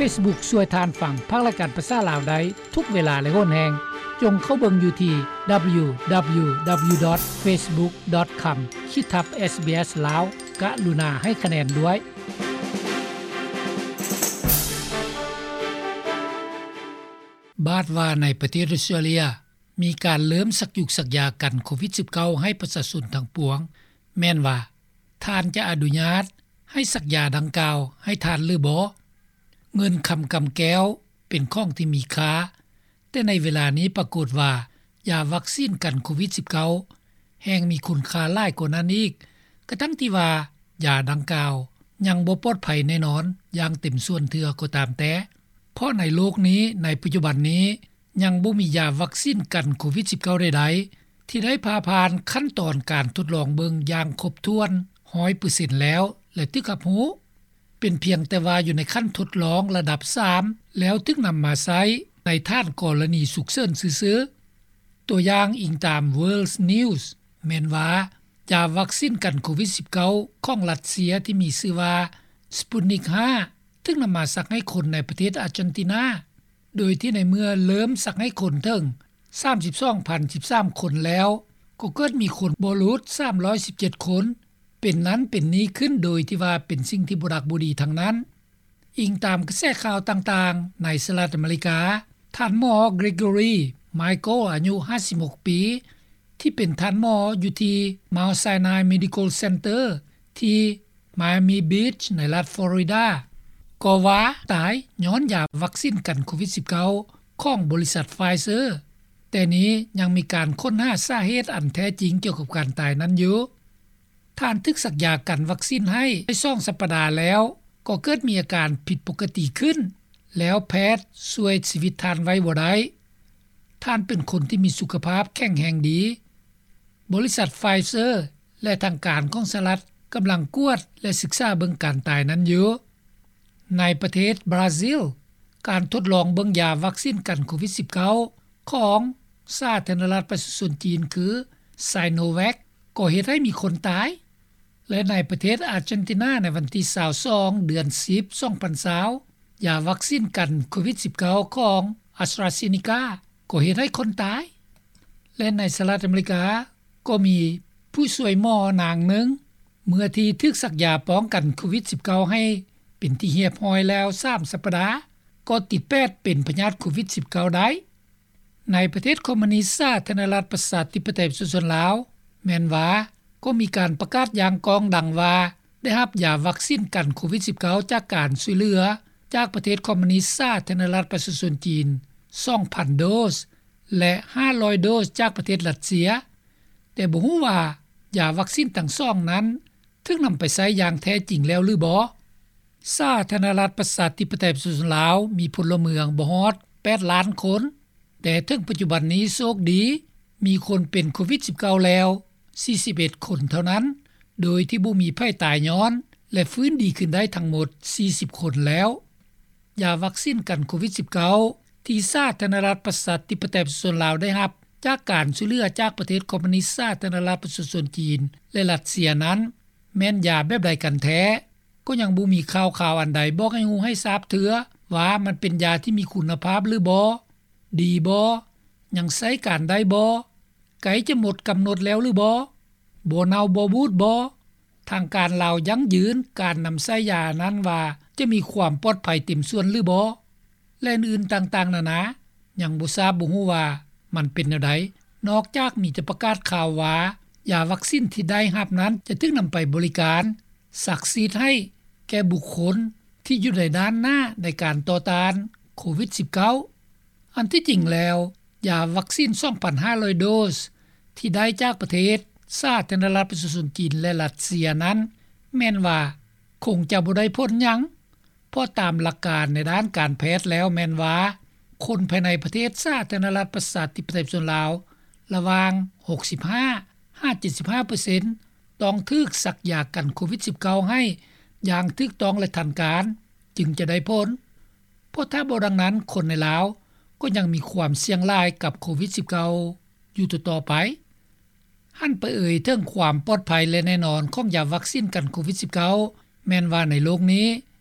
Facebook ຊ່ວຍທ່ານຟັງພັກລາຍການພາສາລາວໄດ້ທຸກເວລາ ແລະ ໂຫນແຮງ. ຈົ່ງເຂົ້າເບິ່ງຢູ່ທີ່ www.facebook.com ຂີດທັບ SBS ລາວ. ກະລຸນາໃຫ້ຄະແນນດ້ວຍ. ບາດວ່າໃນປະເທດອົດສະຕຣາເລຍ ມີການເລີ່ມສັກຢູກສັກຢາກັນໂຄວິດສິບເກົ້າໃຫ້ປະຊາຊົນທັງປວງ, ແມ່ນວ່າທ່ານຈະອະນຸຍາດໃຫ້ສັກຢາດັ່ງກ່າວໃຫ້ທ່ານຫຼືບໍ່? ເງິນຄຳກຳແກ້ວເປັນຂອງທີ່ມີຄ່າ, ແຕ່ໃນເວລານີ້ປາກົດວ່າຢາວັກຊີນກັນໂຄວິດສິບເກົ້າແຮ່ງມີຄຸນຄ່າຫຼາຍກວ່ານັ້ນອີກ, ກະທັ່ງທີ່ວ່າຢາດັ່ງກ່າວຍັງບໍ່ປອດໄພແນ່ນອນຢ່າງເຕັມສ່ວນເທື່ອກໍຕາມແຕ່. ເພາະໃນໂລກນີ້, ໃນປັດຈຸບັນນີ້, ຍັງບໍ່ມີຢາວັກຊີນກັນໂຄວິດສິບເກົ້າໃດໆ ທີ່ໄດ້ຜ່າຜ່ານຂັ້ນຕອນການທົດລອງເບິ່ງຢ່າງຄົບຖ້ວນຮ້ອຍເປີເຊັນແລ້ວ ແລະ ຖືກຮັບຮູ້. ເປັນພຽງແຕ່ວ່າຢູ່ໃນຂັ້ນທົດລອງລະດັບສາມ ແລ້ວຖືກນຳມາໃຊ້ໃນຖານກໍລະນີສຸກເສີນຊື່ໆ. ຕົວຢ່າງ, ອີງຕາມ World News ແມ່ນວ່າ ຢາວັກຊີນກັນໂຄວິດສິບເກົ້າຂອງຣັດເຊຍທີ່ມີຊື່ວ່າ Sputnik ຫ້າ ຖືກນຳມາສັກໃຫ້ຄົນໃນປະເທດອາເຈນຕິນາ, ໂດຍທີ່ໃນເມື່ອເລີ່ມສັກໃຫ້ຄົນເຖິງສາມສິບສອງພັນສິບສາມຄົນແລ້ວ, ກໍເກີດມີຄົນບໍ່ຫຼຸດສາມຮ້ອຍສິບເຈັດຄົນ ເປັນນັ້ນເປັນນີ້ຂຶ້ນ ໂດຍທີ່ວ່າເປັນສິ່ງທີ່ບໍ່ດັກບໍ່ດີທັງນັ້ນ. ອີງຕາມກະແສຂ່າວຕ່າງໆໃນສະຫະລັດອາເມລິກາ, ທ່ານໝໍ Gregory Michael ອາຍຸຫ້າສິບຫົກປີ ທີ່ເປັນທ່ານໝໍຢູ່ທີ່ Mount Sinai Medical Center ທີ່ Miami Beach ໃນລັດ Florida ກໍວ່າຕາຍຍ້ອນຢາວັກຊີນກັນໂຄວິດສິບເກົ້າຂອງບໍລິສັດ Pfizer, ແຕ່ນີ້ຍັງມີການຄົ້ນຫາສາເຫດອັນແທ້ຈິງກ່ຽວກັບການຕາຍນັ້ນຢູ່. ທ່ານຖືກສັກຢາກັນວັກຊີນໃຫ້ໄດ້ສອງສັບປະດາແລ້ວ ກໍເກີດມີອາການຜິດປົກກະຕິຂຶ້ນ, ແລ້ວແພດຊ່ວຍຊີວິດທ່ານໄວ້ບໍ່ໄດ້. ທ່ານເປັນຄົນທີ່ມີສຸຂະພາບແຂງແຮງດີ. ບໍລິສັດ Pfizer ແລະ ທາງການຂອງສະຫະລັດກຳລັງກວດ ແລະ ສຶກສາເບິ່ງການຕາຍນັ້ນຢູ່. ໃນປະເທດບຣາຊິລ, ການທົດລອງເບິ່ງຢາວັກຊີນກັນໂຄວິດສິບເກົ້າຂອງສາທາລະນະລັດປະຊາຊົນຈີນຄື Sinovac ກໍເຮັດໃຫ້ມີຄົນຕາຍ ແລະ ໃນປະເທດອາເຈນຕິນາ ໃນວັນທີຊາວສອງ ເດືອນສິບ ສອງພັນຊາວ ຢາວັກຊີນກັນໂຄວິດສິບເກົ້າຂອງ AstraZeneca ກໍເຮັດໃຫ້ຄົນຕາຍ ແລະ ໃນສະຫະລັດອາເມລິກາ ກໍມີຜູ້ຊ່ວຍໝໍນາງໜຶ່ງ ເມື່ອທີ່ຖືກສັກຢາປ້ອງກັນໂຄວິດສິບເກົ້າໃຫ້ເປັນທີ່ຮຽບຮ້ອຍແລ້ວສາມສັບປະດາ ກໍຕິດແປດເປັນພະຍາດໂຄວິດສິບເກົ້າໄດ້. ໃນປະເທດຄອມມູນິດສາທາລະນະລັດປະຊາທິປະໄຕປະຊາຊົນລາວ ແມ່ນວ່າກໍມີການປະກາດຢ່າງກ້ອງດັງວ່າ ໄດ້ຮັບຢາວັກຊີນກັນໂຄວິດສິບເກົ້າຈາກການຊ່ວຍເຫຼືອຈາກປະເທດຄອມມູນິດສາທາລະນະລັດປະຊາຊົນຈີນ ສອງພັນໂດສ ແລະ ຫ້າຮ້ອຍໂດສຈາກປະເທດຣັດເຊຍ, ແຕ່ບໍ່ຮູ້ວ່າຢາວັກຊີນທັງສອງນັ້ນຖືກນຳໄປໃຊ້ຢ່າງແທ້ຈິງແລ້ວຫຼືບໍ່. ສາທາລະນະລັດປະຊາທິປະໄຕປະຊາຊົນລາວມີພົນລະເມືອງບໍ່ຮອດແປດລ້ານຄົນ, ແຕ່ເຖິງປັດຈຸບັນນີ້ໂຊກດີມີຄົນເປັນໂຄວິດສິບເກົ້າແລ້ວສີ່ສິບເອັດຄົນເທົ່ານັ້ນ, ໂດຍທີ່ບໍ່ມີໃຜຕາຍຍ້ອນ ແລະ ຟື້ນດີຂຶ້ນໄດ້ທັງໝົດສີ່ສິບຄົນແລ້ວ. ຢາວັກຊີນກັນໂຄວິດສິບເກົ້າທີ່ສາທາລະນະລັດປະຊາທິປະໄຕປະຊາຊົນລາວໄດ້ຮັບຈາກການຊ່ວຍເຫຼືອຈາກປະເທດຄອມມູນິດສາທາລະນະລັດປະຊາຊົນຈີນ ແລະ ຣັດເຊຍນັ້ນ ແມ່ນຢາແບບໃດກັນແທ້? ກໍຍັງບໍ່ມີຂ່າວຄາວອັນໃດບອກໃຫ້ຮູ້ໃຫ້ຊາບເທື່ອວ່າມັນເປັນຢາທີ່ມີຄຸນນະພາບຫຼືບໍ່, ດີບໍ່, ຍັງໃຊ້ການໄດ້ບໍ່, ໃກ້ຈະໝົດກຳນົດແລ້ວຫຼືບໍ່, ບໍ່ເນົ່າບໍ່ບູດບໍ່, ທາງການລາວຢັ້ງຢືນການນຳໃຊ້ຢານັ້ນວ່າຈະມີຄວາມປອດໄພເຕັມສ່ວນຫຼືບໍ່ ແລະ ອື່ນໆຕ່າງໆນານາ, ຍັງບໍ່ຊາບບໍ່ຮູ້ວ່າມັນເປັນແນວໃດ, ນອກຈາກມີແຕ່ປະກາດຂ່າວວ່າ ຢາວັກຊີນທີ່ໄດ້ຮັບນັ້ນຈະຖືກນຳໄປບໍລິການສັກສີດໃຫ້ແກ່ບຸກຄົນທີ່ຢູ່ໃນດ້ານໜ້າໃນການຕໍ່ຕ້ານໂຄວິດສິບເກົ້າ. ອັນທີ່ຈິງແລ້ວ, ຢາວັກຊີນສອງພັນຫ້າຮ້ອຍໂດສທີ່ໄດ້ຈາກປະເທດສາທາລະນະລັດປະຊາຊົນຈີນ ແລະ ຣັດເຊຍນັ້ນ ແມ່ນວ່າຄົງຈະບໍ່ໄດ້ຜົນຫຍັງ, ເພາະຕາມຫຼັກການໃນດ້ານການແພດແລ້ວແມ່ນວ່າ ຄົນພາຍໃນປະເທດສາທາລະນະລັດປະຊາທິປະໄຕປະຊາຊົນລາວ ລະຫວ່າງຫົກສິບຫ້າຫາເຈັດສິບຫ້າເປີເຊັນ ຕ້ອງຖືກສັກຢາກັນໂຄວິດສິບເກົ້າໃຫ້ຢ່າງຖືກຕ້ອງ ແລະ ທັນການ ຈຶ່ງຈະໄດ້ຜົນ. ເພາະຖ້າບໍ່ດັ່ງນັ້ນ, ຄົນໃນລາວກໍຍັງມີຄວາມສ່ຽງຫຼາຍກັບໂຄວິດສິບເກົ້າຢູ່ຕໍ່ໆໄປ. ຫັນໄປເອີຍເຖິງຄວາມປອດໄພ ແລະ ແນ່ນອນຂອງຢາວັກຊີນກັນໂຄວິດສິບເກົ້າ ແມ່ນວ່າໃນໂລກນີ້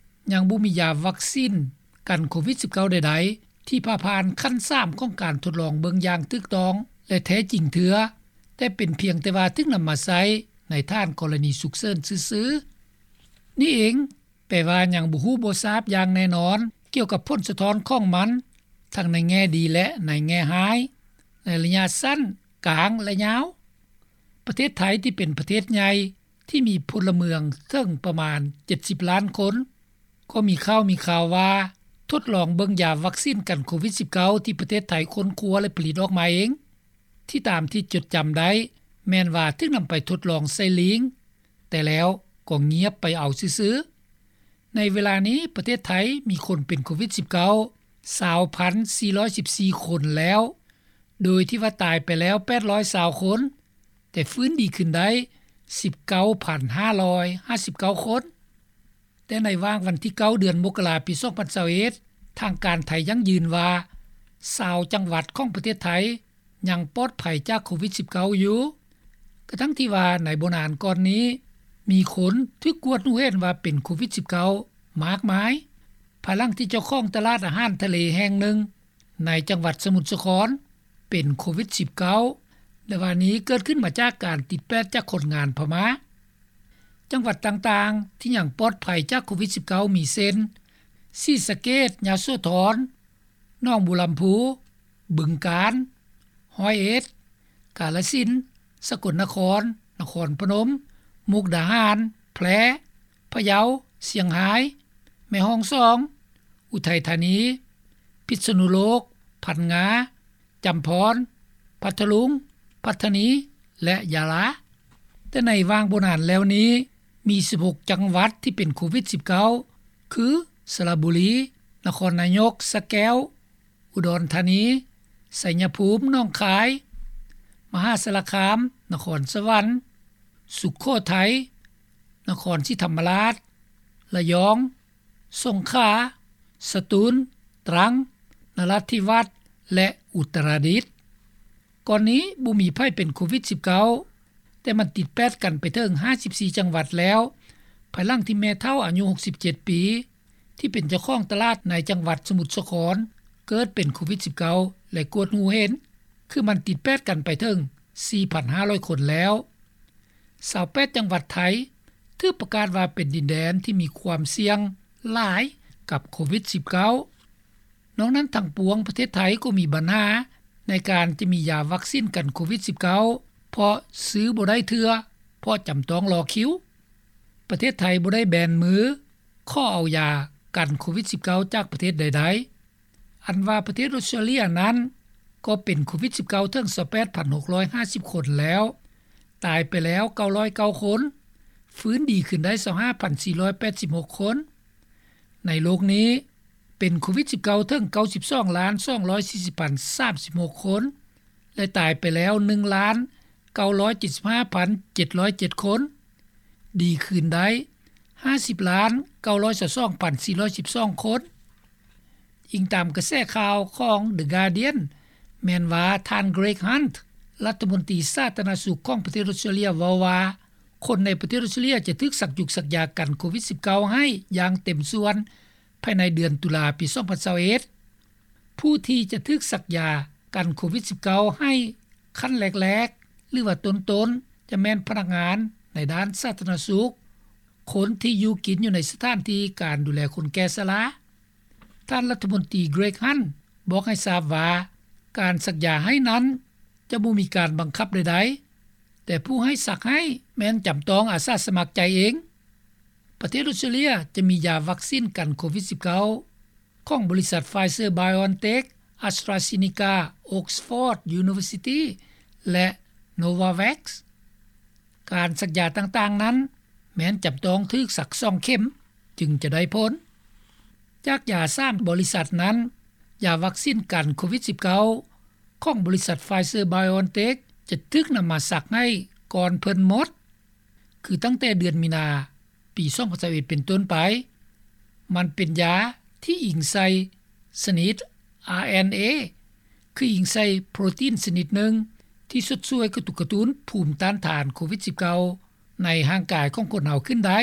ຍັງບໍ່ມີຢາວັກຊີນ ກັນໂຄວິດ-19 ໃດໆ ທີ່ຜ່າຜ່ານຂັ້ນ 3 ຂອງການທົດລອງເບິ່ງຢ່າງຖືກຕ້ອງ ແລະ ແທ້ຈິງເທື່ອ, ແຕ່ເປັນພຽງແຕ່ວ່າຖືກນຳມາໃຊ້ໃນຖານກໍລະນີສຸກເສີນຊື່ໆ. ນີ້ເອງແປວ່າຍັງບໍ່ຮູ້ບໍ່ຊາບຢ່າງແນ່ນອນ ກ່ຽວກັບຜົນສະທ້ອນຂອງມັນ ທັງໃນແງ່ດີ ແລະ ໃນແງ່ຮ້າຍ ໃນໄລຍະສັ້ນ, ກາງ ແລະ ຍາວ. ປະເທດໄທທີ່ເປັນປະເທດໃຫຍ່ ທີ່ມີພົນລະເມືອງເຖິງປະມານ 70 ລ້ານຄົນ ກໍມີຂ່າວມີຂ່າວວ່າ ທົດລອງເບິ່ງຢາວັກຊີນກັນໂຄວິດ-19 ທີ່ປະເທດໄທຄົ້ນຄວ້າ ແລະ ຜະລິດອອກມາເອງ ທີ່ຕາມທີ່ຈົດຈຳໄດ້ ແມ່ນວ່າຖືກນຳໄປທົດລອງໃສ່ລີງ ແຕ່ແລ້ວກໍງຽບໄປເອົາຊື່ໆ. ໃນເວລານີ້ປະເທດໄທມີຄົນເປັນໂຄວິດ-19 ຊາວພັນສີ່ຮ້ອຍສິບສີ່ຄົນແລ້ວ, ໂດຍທີ່ວ່າຕາຍໄປແລ້ວ ແປດຮ້ອຍຊາວຄົນ, ແຕ່ຟື້ນດີຂຶ້ນໄດ້ ສິບເກົ້າພັນຫ້າຮ້ອຍຫ້າສິບເກົ້າຄົນ. ແຕ່ໃນຫວ່າງວັນທີ 9 ເດືອນມົກກະລາ ປີ 2021, ທາງການໄທຢັ້ງຢືນວ່າ ຊາວຈັງຫວັດຂອງປະເທດໄທຍັງປອດໄພຈາກໂຄວິດ-19 ຢູ່, ກະທັ່ງທີ່ວ່າໃນບໍ່ນານກ່ອນນີ້ ມີຄົນຖືກກວດຮູ້ເຫັນວ່າເປັນໂຄວິດ-19 ມາກມາຍ, ພາຍຫຼັງທີ່ເຈົ້າຂອງຕະຫຼາດອາຫານທະເລແຫ່ງໜຶ່ງ ໃນຈັງຫວັດສະໝຸດສາຄອນ ເປັນໂຄວິດ-19 ແລະ ວ່ານີ້ເກີດຂຶ້ນມາຈາກການຕິດແປດຈາກຄົນງານພະມ້າ. ຈັງຫວັດຕ່າງໆທີ່ຍັງປອດໄພຈາກໂຄວິດ-19 ມີເຊັ່ນ ສີສະເກດ, ຍະໂສທອນ, ໜອງບົວລຳພູ, ບຶງການ, ຮ້ອຍເອັດ, ກາລະສິນ, ສະກົນນະຄອນ, ນະຄອນພະນົມ, ມຸກດາຫານ, ແພ່, ພະເຍົາ, ຊຽງຮາຍ, ແມ່ຮ່ອງສອງ, ອຸໄທທານີ, ພິດສະນຸໂລກ, ພັງງາ, ຈຳພອນ, ພັດທະລຸງ, ປັດຕານີ ແລະ ຍາລາ. ແຕ່ໃນຫວ່າງບໍ່ນານແລ້ວນີ້ ມີສິບຫົກຈັງຫວັດທີ່ເປັນໂຄວິດ-19 ຄື ສະລະບູລີ, ນະຄອນນາຍົກ, ສະແກ້ວ, ອຸດອນທານີ, ໄຊຍະພູມ, ໜອງຄາຍ, ມະຫາສາລະຄາມ, ນະຄອນສະຫວັນ, ສຸໂຂໄທ, ນະຄອນສີທຳມະລາດ, ລະຍອງ, ສົງຂາ, ສະຕູນ, ຕຣັງ, ນະລາທິວາດ ແລະ ອຸດຕະລະດິດ. ກ່ອນນີ້ບໍ່ມີໃຜເປັນໂຄວິດ-19, ແຕ່ມັນຕິດແປດກັນໄປເຖິງ ຫ້າສິບສີ່ ຈັງຫວັດແລ້ວ, ພາຍຫຼັງທີ່ແມ່ເຖົ້າອາຍຸ 67 ປີ ທີ່ເປັນເຈົ້າຂອງຕະຫຼາດໃນຈັງຫວັດສະໝຸດສາຄອນ ເກີດເປັນໂຄວິດ-19 ແລະ ກວດຮູ້ເຫັນ, ຄືມັນຕິດແປດກັນໄປເຖິງ ສີ່ພັນຫ້າຮ້ອຍຄົນແລ້ວ. ຊາວແປດ ຈັງຫວັດໄທ ຖືກປະກາດວ່າເປັນດິນແດນທີ່ມີຄວາມສ່ຽງຫຼາຍກັບໂຄວິດ-19. ນອກນັ້ນທັງປວງ ປະເທດໄທກໍມີບັນຫາໃນການຈະມີຢາວັກຊີນກັນໂຄວິດ-19 ເພາະຊື້ບໍ່ໄດ້ເທື່ອ ເພາະຈຳຕ້ອງລໍຄິວ. ປະເທດໄທບໍ່ໄດ້ແບນມືຂໍເອົາຢາກັນໂຄວິດ-19 ຈາກປະເທດໃດໆ. ອັນວ່າປະເທດອົດສະຕຣາເລຍນັ້ນ ກໍເປັນໂຄວິດ-19 ເຖິງ ຊາວແປດພັນຫົກຮ້ອຍຫ້າສິບຄົນແລ້ວ, ຕາຍໄປແລ້ວ ເກົ້າຮ້ອຍເກົ້າຄົນ, ຟື້ນດີຂຶ້ນໄດ້ ຊາວຫ້າພັນສີ່ຮ້ອຍແປດສິບຫົກຄົນ. ໃນໂລກນີ້ ເປັນໂຄວິດ-19 ເຖິງ ເກົ້າສິບສອງລ້ານສອງຮ້ອຍສີ່ສິບພັນສາມສິບຫົກຄົນ ແລະ ຕາຍໄປແລ້ວ ໜຶ່ງລ້ານເກົ້າຮ້ອຍເຈັດສິບຫ້າພັນເຈັດຮ້ອຍເຈັດຄົນ, ດີຂຶ້ນໄດ້ ຫ້າສິບລ້ານເກົ້າຮ້ອຍຊາວສອງພັນສີ່ຮ້ອຍສິບສອງຄົນ. ອີງຕາມກະແສຂ່າວຂອງ The Guardian ແມ່ນວ່າທ່ານ Greg Hunt ລັດຖະມົນຕີສາທາລະນະສຸກຂອງປະເທດອົດສະຕຣາເລຍ ເວົ້າວ່າ ຄົນໃນປະເທດອົດສະຕຣາເລຍຈະຖືກສັກຢຸກສັກຢາກັນໂຄວິດ-19 ໃຫ້ຢ່າງເຕັມສ່ວນ ພາຍໃນເດືອນຕຸລາ ປີ 2021. ຜູ້ທີ່ຈະຖືກສັກຢາກັນໂຄວິດ-19 ໃຫ້ຂັ້ນແລກໆ ຫຼືວ່າຕົ້ນໆ ຈະແມ່ນພະນັກງານໃນດ້ານສາທາລະນະສຸກ, ຄົນທີ່ຢູ່ກິນຢູ່ໃນສະຖານທີ່ການດູແລຄົນແກ່ຊະລາ. ທ່ານລັດຖະມົນຕີ Greg Hunt ບອກໃຫ້ຊາບວ່າ ການສັກຢາໃຫ້ນັ້ນຈະບໍ່ມີການບັງຄັບໃດໆ, ແຕ່ຜູ້ໃຫ້ສັກໃຫ້ແມ່ນຈຳຕ້ອງອາສາສະໝັກໃຈເອງ. ປະເທດອົດສະຕຣາເລຍຈະມີຢາວັກຊີນກັນໂຄວິດ-19 ຂອງບໍລິສັດ Pfizer-BioNTech, AstraZeneca, Oxford University ແລະ Novavax. ການສັກຢາຕ່າງໆນັ້ນ ແມ່ນຈຳຕ້ອງຖືກສັກສອງເຂັມຈຶ່ງຈະໄດ້ຜົນ. ຈາກຢາສາມບໍລິສັດນັ້ນ, ຢາວັກຊີນກັນໂຄວິດ-19 ຂອງບໍລິສັດ Pfizer-BioNTech ຈະຖືກນຳມາສັກໃຫ້ກ່ອນເພິ່ນໝົດ, ຄືຕັ້ງແຕ່ເດືອນມີນາ ປີ 2021 ເປັນຕົ້ນໄປ. ມັນເປັນຢາທີ່ອີງໃສ່ຊະນິດ RNA ຄືອີງໃສ່ໂປຣຕີນຊະນິດໜຶ່ງ ທີ່ຊົດຊ່ວຍກະຕຸກກະຕຸ້ນພູມຕ້ານທານໂຄວິດ-19 ໃນຮ່າງກາຍຂອງຄົນເຮົາຂຶ້ນໄດ້.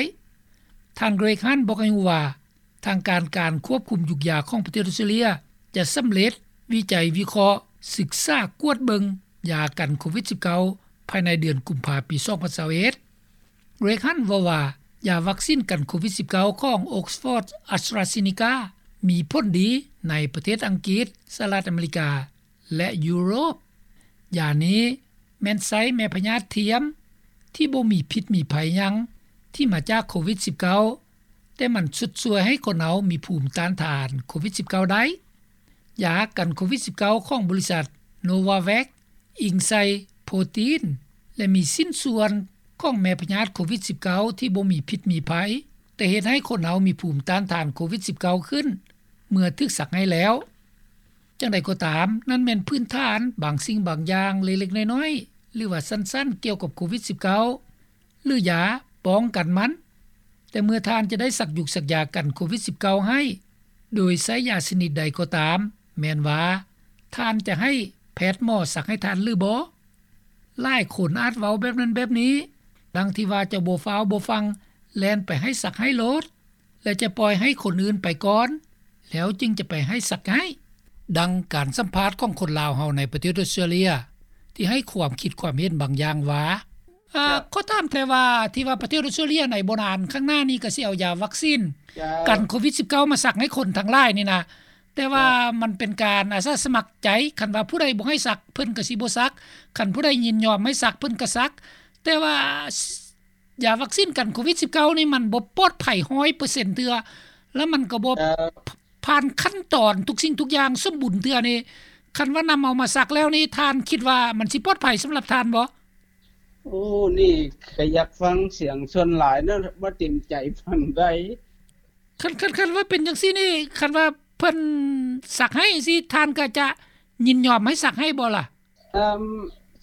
ທ່ານ Greg Hunt ບອກໃຫ້ຮູ້ວ່າ ທາງການການຄວບຄຸມຢຸກຢາຂອງປະເທດອອສເຕຣເລັຍ ຈະສຳເລັດວິໄຈວິເຄາະ, ສຶກສາກວດເບິ່ງຢາກັນໂຄວິດສິບເກົ້າ ພາຍໃນເດືອນກຸມພາປີສອງພັນຊາວເອັດ. ເຣກຮັນເວົ້າວ່າ ຢາວັກຊິນກັນໂຄວິດສິບເກົ້າຂອງ Oxford AstraZeneca ມີຜົນດີໃນປະເທດອັງກິດ, ສະຫະລັດອາເມລິກາ ແລະ ຢູໂຣບ. ຢານີ້ແມ່ນໃຊ້ແມ່ພະຍາດທຽມທີ່ບໍ່ມີພິດມີໄພຫຍັງ ທີ່ມາຈາກໂຄວິດສິບເກົ້າ ແຕ່ມັນຊຸດຊ່ວຍໃຫ້ຄົນເຮົາມີພູມຕ້ານທານໂຄວິດສິບເກົ້າໄດ້. ຢາກັນໂຄວິດສິບເກົ້າຂອງບໍລິສັດ Novavax ອີງໃສ່ໂປຣຕີນ ແລະ ມີຊິ້ນສ່ວນຂອງແມ່ພະຍາດໂຄວິດສິບເກົ້າ ທີ່ບໍ່ມີພິດມີໄພ ແຕ່ເຮັດໃຫ້ຄົນເຮົາມີພູມຕ້ານທານໂຄວິດສິບເກົ້າຂຶ້ນ ເມື່ອຖືກສັກໃຫ້ແລ້ວ. ຈັ່ງໃດກໍຕາມ, ນັ້ນແມ່ນພື້ນຖານບາງສິ່ງບາງຢ່າງເລັກໆນ້ອຍໆ ຫຼືວ່າສັ້ນໆ ກ່ຽວກັບໂຄວິດສິບເກົ້າ ຫຼືຢາປ້ອງກັນມັນ. ແຕ່ເມື່ອທ່ານຈະໄດ້ສັກຢຸກສັກຢາກັນໂຄວິດສິບເກົ້າໃຫ້ ໂດຍໃຊ້ຢາຊະນິດໃດກໍຕາມ, ແມ່ນວ່າທ່ານຈະໃຫ້ແພດໝໍສັກໃຫ້ທ່ານຫຼືບໍ່? ຫຼາຍຄົນອາດເວົ້າແບບນັ້ນແບບນີ້ ດັ່ງທີ່ວ່າຈະບໍ່ຟ້າວບໍ່ຟັ່ງແລ່ນໄປໃຫ້ສັກໃຫ້ໂລດ ແລະ ຈະປ່ອຍໃຫ້ຄົນອື່ນໄປກ່ອນ ແລ້ວຈຶ່ງຈະໄປໃຫ້ສັກໃຫ້. ດັ່ງການສຳພາດຂອງຄົນລາວເຮົາໃນປະເທດອອສເຕຣເລັຍ ທີ່ໃຫ້ຄວາມຄິດຄວາມເຫັນບາງຢ່າງວ່າ ເອີ ເຈົ້າ ຂໍຖາມແຕ່ວ່າ ທີ່ວ່າປະເທດອອສເຕຣເລັຍໃນບໍ່ນານຂ້າງໜ້ານີ້ກໍຊິເອົາຢາວັກຊິນ ເຈົ້າ ກັນໂຄວິດສິບເກົ້າມາສັກໃຫ້ຄົນທັງຫຼາຍນີ້ນະ ແຕ່ວ່າ ເຈົ້າ ມັນເປັນການອາສາສະໝັກໃຈ, ຄັນວ່າຜູ້ໃດບໍ່ໃຫ້ສັກ ເພິ່ນກໍຊິບໍ່ສັກ, ຄັນຜູ້ໃດຍິນຍອມໃຫ້ສັກ ເພິ່ນກໍສັກ. ແຕ່ວ່າ ຢາວັກຊິນກັນໂຄວິດສິບເກົ້ານີ້ມັນບໍ່ປອດໄພຮ້ອຍເປີເຊັນເທື່ອ ແລ້ວມັນກໍບໍ່ ເອີ ຜ່ານຂັ້ນຕອນທຸກສິ່ງທຸກຢ່າງສົມບູນເທື່ອນີ້ ຄັນວ່ານຳເອົາມາສັກແລ້ວນີ້ ທ່ານຄິດວ່າມັນຊິປອດໄພສຳລັບທ່ານບໍ່? ໂອ້ ນີ້ກໍຢາກຟັງສຽງສ່ວນຫຼາຍເນາະ ບໍ່ເຕັມໃຈຟັງໄດ້. ຄັນ ຄັນ ຄັນວ່າເປັນຈັ່ງຊີ້ນີ້ ຄັນວ່າເພິ່ນສັກໃຫ້ຈັ່ງຊີ້ ທ່ານກໍຈະຍິນຍອມໃຫ້ສັກໃຫ້ບໍ່ລະ? ເອີ່ມ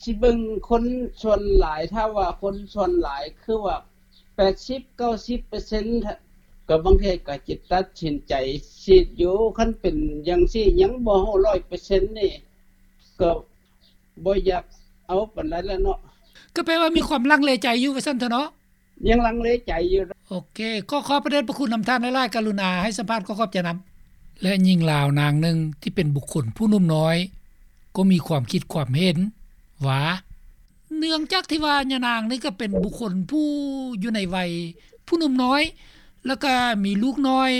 ຊິເບິ່ງຄົນສ່ວນຫຼາຍ, ຖ້າວ່າຄົນສ່ວນຫຼາຍຄືວ່າແປດສິບເກົ້າສິບເປີເຊັນ ກໍບາງເທື່ອກໍຈະຕັດສິນໃຈສີດຢູ່. ຄັນເປັນຢ່າງຊີ້ຍັງບໍ່ຮູ້ຮ້ອຍເປີເຊັນນີ້ ກໍບໍ່ຢາກເອົາປານໃດແລ້ວເນາະ. ກໍແປວ່າມີຄວາມລັງເລໃຈຢູ່ວ່າຊັ້ນເຖາະເນາະ. ຍັງລັງເລໃຈຢູ່. ໂອເຄ ຂໍຂອບພະເດດພະຄຸນນຳທ່ານຫຼາຍໆ ກະລຸນາໃຫ້ສຳພາດ ຂໍຂອບໃຈນຳ. ແລະ ຍິງລາວນາງໜຶ່ງທີ່ເປັນບຸກຄົນຜູ້ໜຸ່ມນ້ອຍ ກໍມີຄວາມຄິດຄວາມເຫັນວ່າ ເນື່ອງຈາກທີ່ວ່າຍານາງນີ້ກໍເປັນບຸກຄົນຜູ້ຢູ່ໃນໄວຜູ້ໜຸ່ມນ້ອຍ ແລ້ວກໍມີລູກນ້ອຍ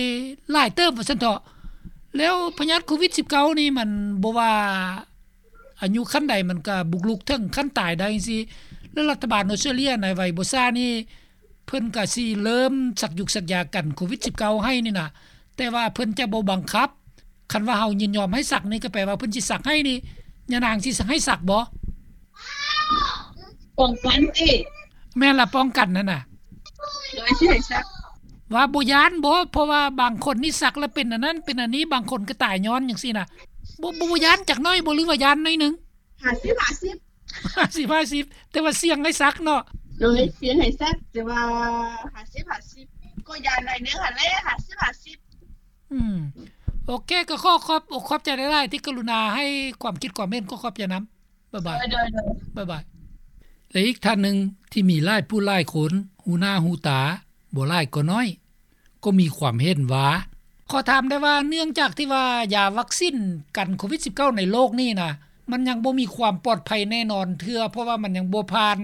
ຫຼາຍເຕີບວ່າຊັ້ນເຖາະ ແລ້ວພະຍາດໂຄວິດສິບເກົ້ານີ້ມັນບໍ່ວ່າ ອາຍຸຂັ້ນໃດມັນກະບຸກລຸກເຖິງຂັ້ນຕາຍໄດ້ຈັ່ງຊີ້ ແລະ ລັດຖະບານອອສເຕຣເລັຍໃນໄວບໍ່ຊ້ານີ້ ເພິ່ນກະຊິເລີ່ມສັກຢຸກສັກຢາກັນໂຄວິດສິບເກົ້າໃຫ້ນີ້ນະ ແຕ່ວ່າເພິ່ນຈະບໍ່ບັງຄັບ. ຄັນວ່າເຮົາຍິນຍອມໃຫ້ສັກນີ້ ກະແປວ່າເພິ່ນຊິສັກໃຫ້ນີ້ ຍານາງຊິໃຫ້ສັກບໍ່? ປ້ອງກັນຕິ? ແມ່ນລະ ປ້ອງກັນຫັ້ນນະ. ໂດຍ ຊິໃຫ້ສັກ ວ່າບໍ່ຢ້ານບໍ່? ເພາະວ່າບາງຄົນນີ້ສັກແລ້ວເປັນອັນນັ້ນເປັນອັນນີ້ ບາງຄົນກໍຕາຍຍ້ອນຈັ່ງຊີ້ນະ ບໍ່ ບໍ່ ບໍ່ຢ້ານຈັກໜ້ອຍບໍ່ ຫຼືວ່າຢ້ານໜ້ອຍໜຶ່ງ? ຫ້າສິບຫ້າສິບ ຫ້າສິບຫ້າສິບ ແຕ່ວ່າສ່ຽງໃຫ້ສັກເນາະ. ໂດຍ ສ່ຽງໃຫ້ສັກ ແຕ່ວ່າຫ້າສິບຫ້າສິບ ກໍຢ້ານໜ້ອຍໜຶ່ງຫັ້ນແຫຼະ ຫ້າສິບຫ້າສິບ. ອືມ ໂອເຄ ກໍຂໍຂອບອົກຂອບໃຈຫຼາຍໆ ທີ່ກະລຸນາໃຫ້ຄວາມຄິດຄວາມເຫັນ ຂໍຂອບໃຈນຳ. ບາຍບາຍ. ໂດຍ ໂດຍ ໂດຍ ບາຍບາຍ. ແລະ ອີກທ່ານໜຶ່ງທີ່ມີຫຼາຍຜູ້ຫຼາຍຄົນຮູ້ໜ້າຮູ້ຕາ ບໍ່ຫຼາຍກໍໜ້ອຍ ກໍມີຄວາມເຫັນວ່າ ຂໍຖາມໄດ້ວ່າ ເນື່ອງຈາກທີ່ວ່າຢາວັກຊິນກັນໂຄວິດສິບເກົ້າໃນໂລກນີ້ນະ ມັນຍັງບໍ່ມີຄວາມປອດໄພແນ່ນອນເທື່ອ ເພາະວ່າມັນຍັງບໍ່ຜ່ານ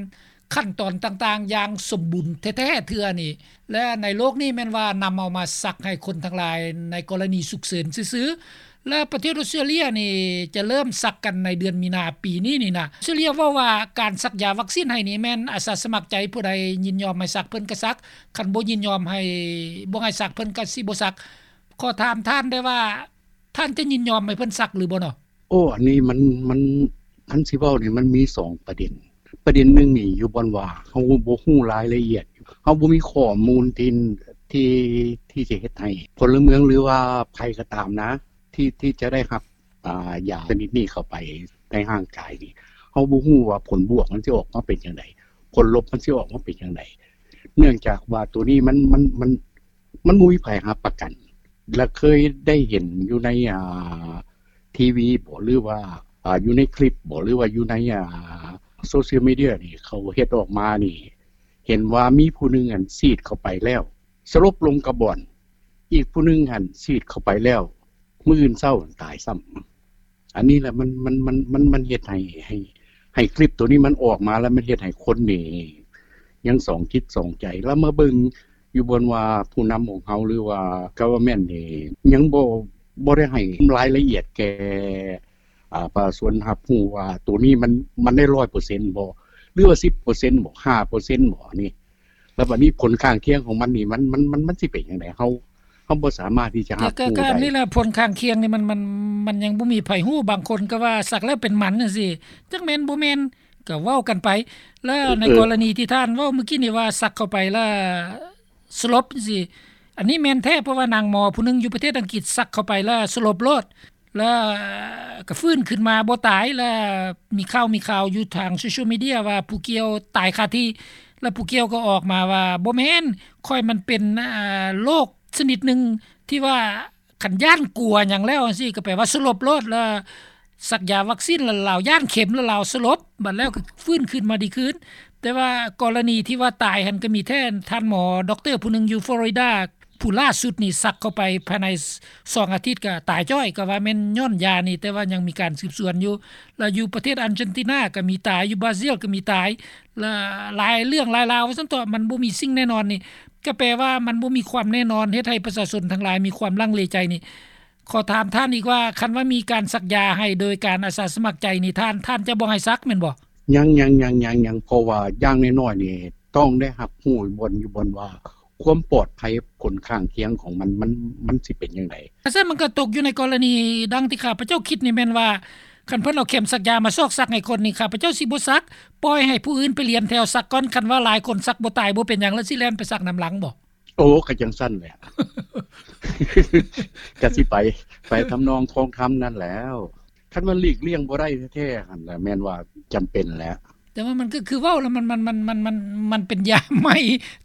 ຂັ້ນຕອນຕ່າງໆຢ່າງສົມບູນແທ້ໆເທື່ອນີ້ ແລະ ໃນໂລກນີ້ແມ່ນວ່ານຳເອົາມາສັກໃຫ້ຄົນທັງຫຼາຍໃນກໍລະນີສຸກເສີນຊື່ໆ ແລະ ປະເທດອອສເຕຣເລັຍນີ້ຈະເລີ່ມສັກກັນໃນເດືອນມີນາປີນີ້ນີ້ນະ. ອອສເຕຣເລັຍເວົ້າວ່າການສັກຢາວັກຊິນໃຫ້ນີ້ແມ່ນອາສາສະໝັກໃຈ ຜູ້ໃດຍິນຍອມໃຫ້ສັກເພິ່ນກໍສັກ, ຄັນບໍ່ຍິນຍອມໃຫ້ ບໍ່ໃຫ້ສັກເພິ່ນກໍຊິບໍ່ສັກ. ຂໍຖາມທ່ານໄດ້ວ່າ ທ່ານຈະຍິນຍອມໃຫ້ເພິ່ນສັກຫຼືບໍ່ເນາະ? ໂອ້ ອັນນີ້ມັນ ມັນ ຄັນຊິເວົ້ານີ້ມັນມີສອງປະເດັນ. ປະເດັນໜຶ່ງນີ້ຢູ່ບ່ອນວ່າເຮົາບໍ່ຮູ້ລາຍລະອຽດ, ເຮົາບໍ່ມີຂໍ້ມູນທີ່ ທີ່ ທີ່ຈະເຮັດໃຫ້ພົນລະເມືອງ ຫຼືວ່າໃຜກໍຕາມນະ ທີ່ ທີ່ຈະໄດ້ຮັບ ອ່າ ຢາຊະນິດນີ້ເຂົ້າໄປໃນຮ່າງກາຍນີ້ ເຮົາບໍ່ຮູ້ວ່າຜົນບວກມັນຊິອອກມາເປັນຈັ່ງໃດ, ຜົນລົບມັນຊິອອກມາເປັນຈັ່ງໃດ. ເນື່ອງຈາກວ່າໂຕນີ້ມັນ ມັນ ມັນ ມັນບໍ່ມີໃຜຮັບປະກັນ ແລະ ເຄີຍໄດ້ເຫັນຢູ່ໃນ ອ່າ ທີວີບໍ ຫຼືວ່າ ອ່າ ຢູ່ໃນຄລິບບໍ ຫຼືວ່າຢູ່ໃນ ອ່າ ໂຊຊຽວມີເດຍນີ້ ເຂົາເຮັດອອກມານີ້ ເຫັນວ່າມີຜູ້ໜຶ່ງ ອັນ ສີດເຂົ້າໄປແລ້ວ ສະຫຼົບລົງກັບບ່ອນ, ອີກຜູ້ໜຶ່ງຫັ້ນ ສີດເຂົ້າໄປແລ້ວ ມື້ອື່ນເຊົ້າຕາຍຊ້ຳ. ອັນນີ້ແຫຼະ ມັນ ມັນ ມັນ ມັນ ມັນເຮັດໃຫ້ ໃຫ້ ໃຫ້ຄລິບໂຕນີ້ມັນອອກມາ ແລ້ວມັນເຮັດໃຫ້ຄົນນີ້ຍັງສອງຈິດສອງໃຈ. ແລ້ວມາເບິ່ງຢູ່ບ່ອນວ່າຜູ້ນຳຂອງເຮົາ ຫຼືວ່າ government ນີ້ຍັງບໍ່ ບໍ່ໄດ້ໃຫ້ລາຍລະອຽດແກ່ ອ່າ ປະຊາຊົນຮັບຮູ້ວ່າໂຕນີ້ມັນ ມັນໄດ້ຮ້ອຍເປີເຊັນບໍ່ ຫຼືວ່າສິບເປີເຊັນບໍ່ ຫ້າເປີເຊັນບໍ່ ອັນນີ້. ແລ້ວບັດນີ້ຜົນຂ້າງຄຽງຂອງມັນນີ້ ມັນ ມັນ ມັນ ມັນຊິເປັນຈັ່ງໃດ? ເຮົາ ເຮົາບໍ່ສາມາດທີ່ຈະຮັບຮູ້ໄດ້. ກໍ ກໍອັນນີ້ແຫຼະ ຜົນຂ້າງຄຽງນີ້ມັນ ມັນ ມັນຍັງບໍ່ມີໃຜຮູ້. ບາງຄົນກໍວ່າສັກແລ້ວເປັນໝັນຈັ່ງຊີ້ ຈັກແມ່ນບໍ່ແມ່ນກໍເວົ້າກັນໄປ. ແລ້ວໃນ ເອີ ກໍລະນີທີ່ທ່ານເວົ້າມື້ກີ້ນີ້ວ່າສັກເຂົ້າໄປແລ້ວສະຫຼົບຈັ່ງຊີ້ ອັນນີ້ແມ່ນແທ້ ເພາະວ່ານາງໝໍຜູ້ໜຶ່ງຢູ່ປະເທດອັງກິດສັກເຂົ້າໄປແລ້ວສະຫຼົບໂລດ. ແລ້ວກໍຟື້ນຂຶ້ນມາບໍ່ຕາຍ. ແລ້ວມີຂ່າວ ມີຂ່າວຢູ່ທາງໂຊຊຽວມີເດຍວ່າຜູ້ກ່ຽວຕາຍຄາທີ່. ແລ້ວຜູ້ກ່ຽວກໍອອກມາວ່າ ບໍ່ແມ່ນ ຂ້ອຍມັນເປັນ ອາ ໂລກຊະນິດໜຶ່ງທີ່ວ່າຄັນຢ້ານກົວຫຍັງແລ້ວຈັ່ງຊີ້ ກໍແປວ່າສະຫຼົບໂລດ. ແລ້ວສັກຢາວັກຊີນ ແລ້ວລາວຢ້ານເຂັມ ແລ້ວລາວສະຫຼົບ ບັດແລ້ວກໍຟື້ນຂຶ້ນມາດີຄືນ. ແຕ່ວ່າກໍລະນີທີ່ວ່າຕາຍຫັ້ນ ກໍມີແທ້ ທ່ານໝໍດັອກເຕີຜູ້ໜຶ່ງຢູ່ຟລໍຣິດາ ຜູ້ລ່າສຸດນີ້ສັກເຂົ້າໄປພາຍໃນສອງອາທິດກໍຕາຍຈ້ອຍ ກໍວ່າແມ່ນຍ້ອນຢານີ້ ແຕ່ວ່າຍັງມີການສືບສວນຢູ່. ແລ້ວຢູ່ປະເທດອາເຈນຕິນາກໍມີຕາຍ ຢູ່ບຣາຊິລກໍມີຕາຍ ແລ້ວຫຼາຍເລື່ອງຫຼາຍລາວວ່າຊັ້ນເຖາະ ມັນບໍ່ມີສິ່ງແນ່ນອນນີ້ ກໍແປວ່າມັນບໍ່ມີຄວາມແນ່ນອນ ເຮັດໃຫ້ປະຊາຊົນທັງຫຼາຍມີຄວາມລັງເລໃຈນີ້. ຂໍຖາມທ່ານອີກວ່າ ຄັນວ່າມີການສັກຢາໃຫ້ໂດຍການອາສາສະໝັກໃຈນີ້ ທ່ານ ທ່ານຈະບໍ່ໃຫ້ສັກແມ່ນບໍ່? ຍັງ ຍັງ ຍັງ ຍັງ ຍັງ ເພາະວ່າຢ່າງໜ້ອຍໆນີ້ຕ້ອງໄດ້ຮັບຮູ້ບ່ອນຢູ່ບ່ອນວ່າ ຄວາມປອດໄພ ຜົນຂ້າງຄຽງຂອງມັນ ມັນ ມັນຊິເປັນຈັ່ງໃດ? ແຕ່ຊັ້ນມັນກໍຕົກຢູ່ໃນກໍລະນີດັ່ງທີ່ຂ້າພະເຈົ້າຄິດນີ້ແມ່ນວ່າ ຄັນເພິ່ນເອົາເຂັມສັກຢາມາຊອກສັກໃຫ້ຄົນນີ້ ຂ້າພະເຈົ້າຊິບໍ່ສັກ ປ່ອຍໃຫ້ຜູ້ອື່ນໄປລຽນແຖວສັກກ່ອນ. ຄັນວ່າຫຼາຍຄົນສັກບໍ່ຕາຍບໍ່ເປັນຫຍັງ ແລ້ວຊິແລ່ນໄປສັກນຳຫຼັງບໍ່? ໂອ້ ກໍຈັ່ງຊັ້ນແຫຼະ ກໍຊິໄປ ໄປທຳນອງຄອງທຳນັ້ນແລ້ວ. ຄັນວ່າຫຼີກລ່ຽງບໍ່ໄດ້ແທ້ໆຫັ້ນລະ ແມ່ນວ່າຈຳເປັນແຫຼະ. ແຕ່ວ່າມັນກໍຄືເວົ້າລະ ມັນ ມັນ ມັນ ມັນ ມັນ ມັນເປັນຢາໃໝ່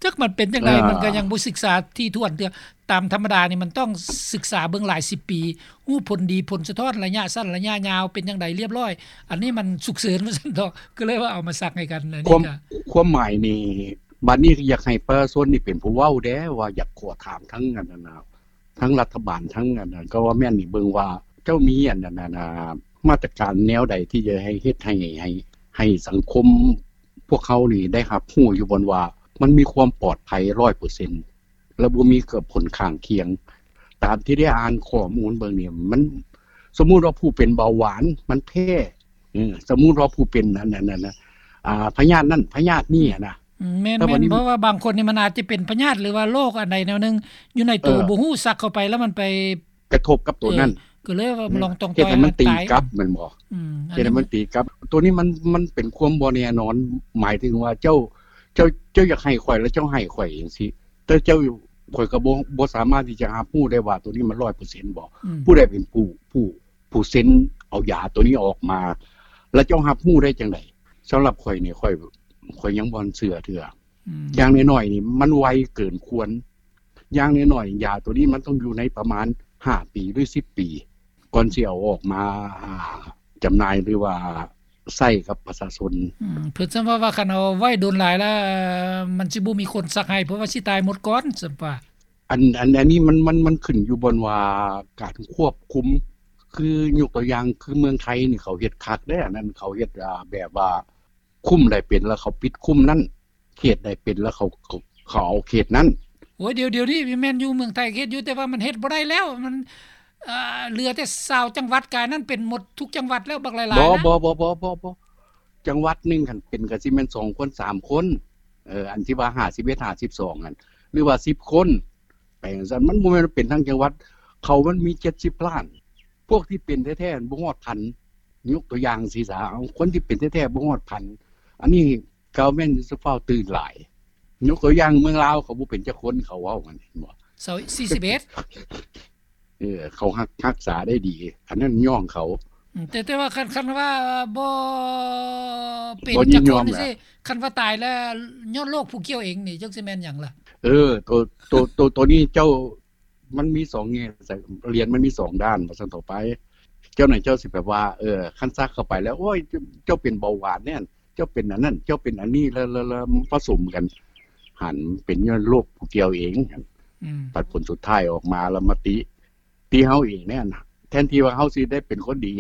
ຈັກມັນເປັນຈັ່ງໃດ ອ່າ ມັນກໍຍັງບໍ່ສຶກສາຖີ່ຖ້ວນເທື່ອ. ຕາມທຳມະດານີ້ມັນຕ້ອງສຶກສາເບິ່ງຫຼາຍສິບປີ ຮູ້ຜົນດີຜົນສະທ້ອນ ໄລຍະສັ້ນໄລຍະຍາວເປັນຈັ່ງໃດລຽບລ້ອຍ. ອັນນີ້ມັນສຸກເສີນວ່າຊັ້ນເຖາະ ກໍເລີຍວ່າເອົາມາສັກໃຫ້ກັນ. ອັນນີ້ ຄວາມ ກໍ ຄວາມໝາຍນີ້ ບັດນີ້ຢາກໃຫ້ປະຊາຊົນນີ້ເປັນຜູ້ເວົ້າແດ່ ວ່າຢາກຂໍຖາມທັງອັນນັ້ນນະ ທັງລັດຖະບານ ທັງອັນນັ້ນ ກໍວ່າແມ່ນນີ້ເບິ່ງວ່າເຈົ້າມີອັນນັ້ນ ອັນ ມາດຕະການແນວໃດທີ່ຈະໃຫ້ເຮັດໃຫ້ ໃຫ້ ໃຫ້ສັງຄົມພວກເຮົານີ້ໄດ້ຮັບຮູ້ຢູ່ບ່ອນວ່າ ມັນມີຄວາມປອດໄພຮ້ອຍເປີເຊັນ ແລະ ບໍ່ມີກັບຜົນຂ້າງຄຽງ. ຕາມທີ່ໄດ້ອ່ານຂໍ້ມູນເບິ່ງນີ້ ມັນ ສົມມຸດວ່າຜູ້ເປັນເບົາຫວານມັນແພ້ ເອີ ສົມມຸດວ່າຜູ້ເປັນອັນ ອັນ ອັນ ອາ ພະຍາດນັ້ນພະຍາດນີ້ຫັ້ນນະ. ອືມ ແມ່ນ ແມ່ນ ເພາະວ່າບາງຄົນນີ້ມັນອາດຈະເປັນພະຍາດ ຫຼືວ່າໂລກອັນໃດແນວໜຶ່ງຢູ່ໃນໂຕ ເອີ ບໍ່ຮູ້ ສັກເຂົ້າໄປແລ້ວມັນໄປກະທົບກັບໂຕນັ້ນ ເອີ ກໍເລີຍວ່າ ອືມ ລອງຕ້ອງ ເຮັດໃຫ້ມັນຕີກັບແມ່ນບໍ່? ອືມ ເຮັດໃຫ້ມັນຕີກັບ. ໂຕນີ້ມັນ ມັນເປັນຄວາມບໍ່ແນ່ນອນ ໝາຍເຖິງວ່າເຈົ້າ ເຈົ້າ ເຈົ້າຢາກໃຫ້ຂ້ອຍ ແລ້ວເຈົ້າໃຫ້ຂ້ອຍຈັ່ງຊີ້ ແຕ່ເຈົ້າ ຂ້ອຍກໍບໍ່ ບໍ່ສາມາດທີ່ຈະຮັບຮູ້ໄດ້ວ່າໂຕນີ້ມັນຮ້ອຍເປີເຊັນບໍ່? ອືມ ຜູ້ໃດເປັນຜູ້ ຜູ້ ຜູ້ເຊັນເອົາຢາໂຕນີ້ອອກມາ ແລ້ວເຈົ້າຮັບຮູ້ໄດ້ຈັ່ງໃດ? ສຳລັບຂ້ອຍນີ້ ຂ້ອຍ ຂ້ອຍຍັງບໍ່ເຊື່ອເທື່ອ. ອືມ ຢ່າງໜ້ອຍໆນີ້ມັນໄວເກີນຄວນ. ຢ່າງໜ້ອຍໆ ຢາໂຕນີ້ມັນຕ້ອງຢູ່ໃນປະມານຫ້າປີ ຫຼື ສິບປີ ກ່ອນຊິເອົາອອກມາ ອ່າ ຈຳໜ່າຍ ຫຼືວ່າໃຊ້ກັບປະຊາຊົນ. ອືມ ເພິ່ນສ່ຳວ່າ ວ່າຄັນເອົາໄວ້ດົນຫຼາຍແລ້ວ ມັນຊິບໍ່ມີຄົນສັກໃຫ້ ເພາະວ່າຊິຕາຍໝົດກ່ອນ ສ່ຳວ່າ. ອັນ ອັນ ອັນນີ້ມັນ ມັນ ມັນຂຶ້ນຢູ່ບ່ອນວ່າການຄວບຄຸມ ຄືຍົກຕົວຢ່າງ ຄືເມືອງໄທນີ້ເຂົາເຮັດຄັກເດ້ ອັນນັ້ນເຂົາເຮັດ ອ່າ ແບບວ່າຄຸ້ມໃດເປັນແລ້ວເຂົາປິດຄຸ້ມນັ້ນ ເຂດໃດເປັນແລ້ວເຂົາ ເຂົາ ເຂົາເອົາເຂດນັ້ນ. ໂອ້ຍ ດຽວ ດຽວນີ້ແມ່ນຢູ່ເມືອງໄທເຮັດຢູ່ ແຕ່ວ່າມັນເຮັດບໍ່ໄດ້ແລ້ວ ມັນ ເອີ ເຫຼືອແຕ່ຊາວຈັງຫວັດ ກາຍນັ້ນເປັນໝົດທຸກຈັງຫວັດແລ້ວ ບັກຫຼາຍໆນະ. ບໍ່ ບໍ່ ບໍ່ ບໍ່ ບໍ່ ຈັງຫວັດໜຶ່ງຄັນເປັນກໍຊິແມ່ນສອງຄົນ ສາມຄົນ ເອີ ອັນທີ່ວ່າຫ້າສິບເອັດ ຫ້າສິບສອງຫັ້ນ ຫຼືວ່າສິບຄົນ ໄປຈັ່ງຊັ້ນ. ມັນບໍ່ແມ່ນເປັນທັງຈັງຫວັດ ເຂົາມັນມີເຈັດສິບລ້ານ ພວກທີ່ເປັນແທ້ໆບໍ່ຮອດພັນ ຍົກຕົວຢ່າງຊີ້ຊະ ເອົາ ຄົນທີ່ເປັນແທ້ໆບໍ່ຮອດພັນ ອັນນີ້ ກໍແມ່ນຈະຟ້າວຕື່ນຫຼາຍ. ຍົກຕົວຢ່າງເມືອງລາວ ເຂົາບໍ່ເປັນຈັກຄົນ ເຂົາເວົ້າຫັ້ນ ເຫັນບໍ່? ຊາວ ສີ່ສິບເອັດ ເອີ ເຂົາຮັກ ຮັກສາໄດ້ດີ ອັນນັ້ນຍ້ອງເຂົາ. ອືມ ແຕ່ ແຕ່ວ່າຄັນ ຄັນວ່າບໍ່ເປັນຈັກຄົນຊີ້ ຄັນວ່າຕາຍແລ້ວຍ້ອນໂລກຜູ້ກ່ຽວເອງນີ້ ຈັກຊິແມ່ນຫຍັງລະ? ເອີ ໂຕ ໂຕ ໂຕ ໂຕນີ້ເຈົ້າ ມັນມີສອງແງ່ ຫຼຽນມັນມີສອງດ້ານ ວ່າຊັ້ນເຖາະໄປ. ເຈົ້ານັ້ນເຈົ້າຊິແບບວ່າ ເອີ ຄັນສັກເຂົ້າໄປແລ້ວ ໂອ້ຍ ເຈົ້າ ເຈົ້າເປັນເບົາຫວານແນ່ ເຈົ້າເປັນອັນນັ້ນ ເຈົ້າເປັນອັນນີ້ ແລ້ວ ແລ້ວ ແລ້ວປະສົມກັນ ຫັ້ນເປັນຍ້ອນໂລກຜູ້ກ່ຽວເອງ. ອືມ ບັດຜົນສຸດທ້າຍອອກມາແລ້ວມາຕິ ຕິເຮົາເອງແນ່ນະ ແທນທີ່ວ່າເຮົາຊິໄດ້ເປັນຄົນດີ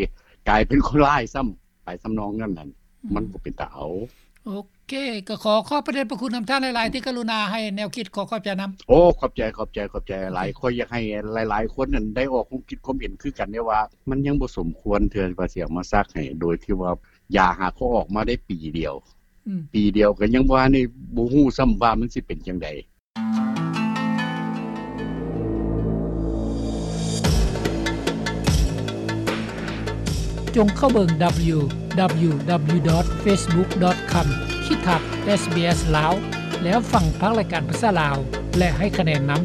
ກາຍເປັນຄົນຮ້າຍຊ້ຳ ໄປທຳນອງນັ້ນນັ້ນ ອືມ ມັນບໍ່ເປັນຕາເອົາ. ໂອເຄ ກໍຂໍຂອບພະເດດພະຄຸນນຳທ່ານຫຼາຍໆ ທີ່ກະລຸນາໃຫ້ແນວຄິດ. ຂໍຂອບໃຈນຳ. ໂອ້ ຂອບໃຈ ຂອບໃຈ ຂອບໃຈຫຼາຍ. ໂອເຄ ຂ້ອຍຢາກໃຫ້ຫຼາຍໆຄົນນັ້ນໄດ້ອອກຄວາມຄິດຄວາມເຫັນຄືກັນເດ້ວ່າ ມັນຍັງບໍ່ສົມຄວນເທື່ອວ່າຊິເອົາມາສັກໃຫ້ ໂດຍທີ່ວ່າຢາຫາກໍອອກມາໄດ້ປີດຽວ. ອືມ ປີດຽວກໍຍັງບໍ່ທັນໄດ້ ບໍ່ຮູ້ຊ້ຳວ່າມັນຊິເປັນຈັ່ງໃດ. ຈົ່ງເຂົ້າເບິ່ງ www.facebook.com/sbslao ແລ້ວຟັງພາກລາຍການພາສາລາວ ແລະ ໃຫ້ຄະແນນນຳ.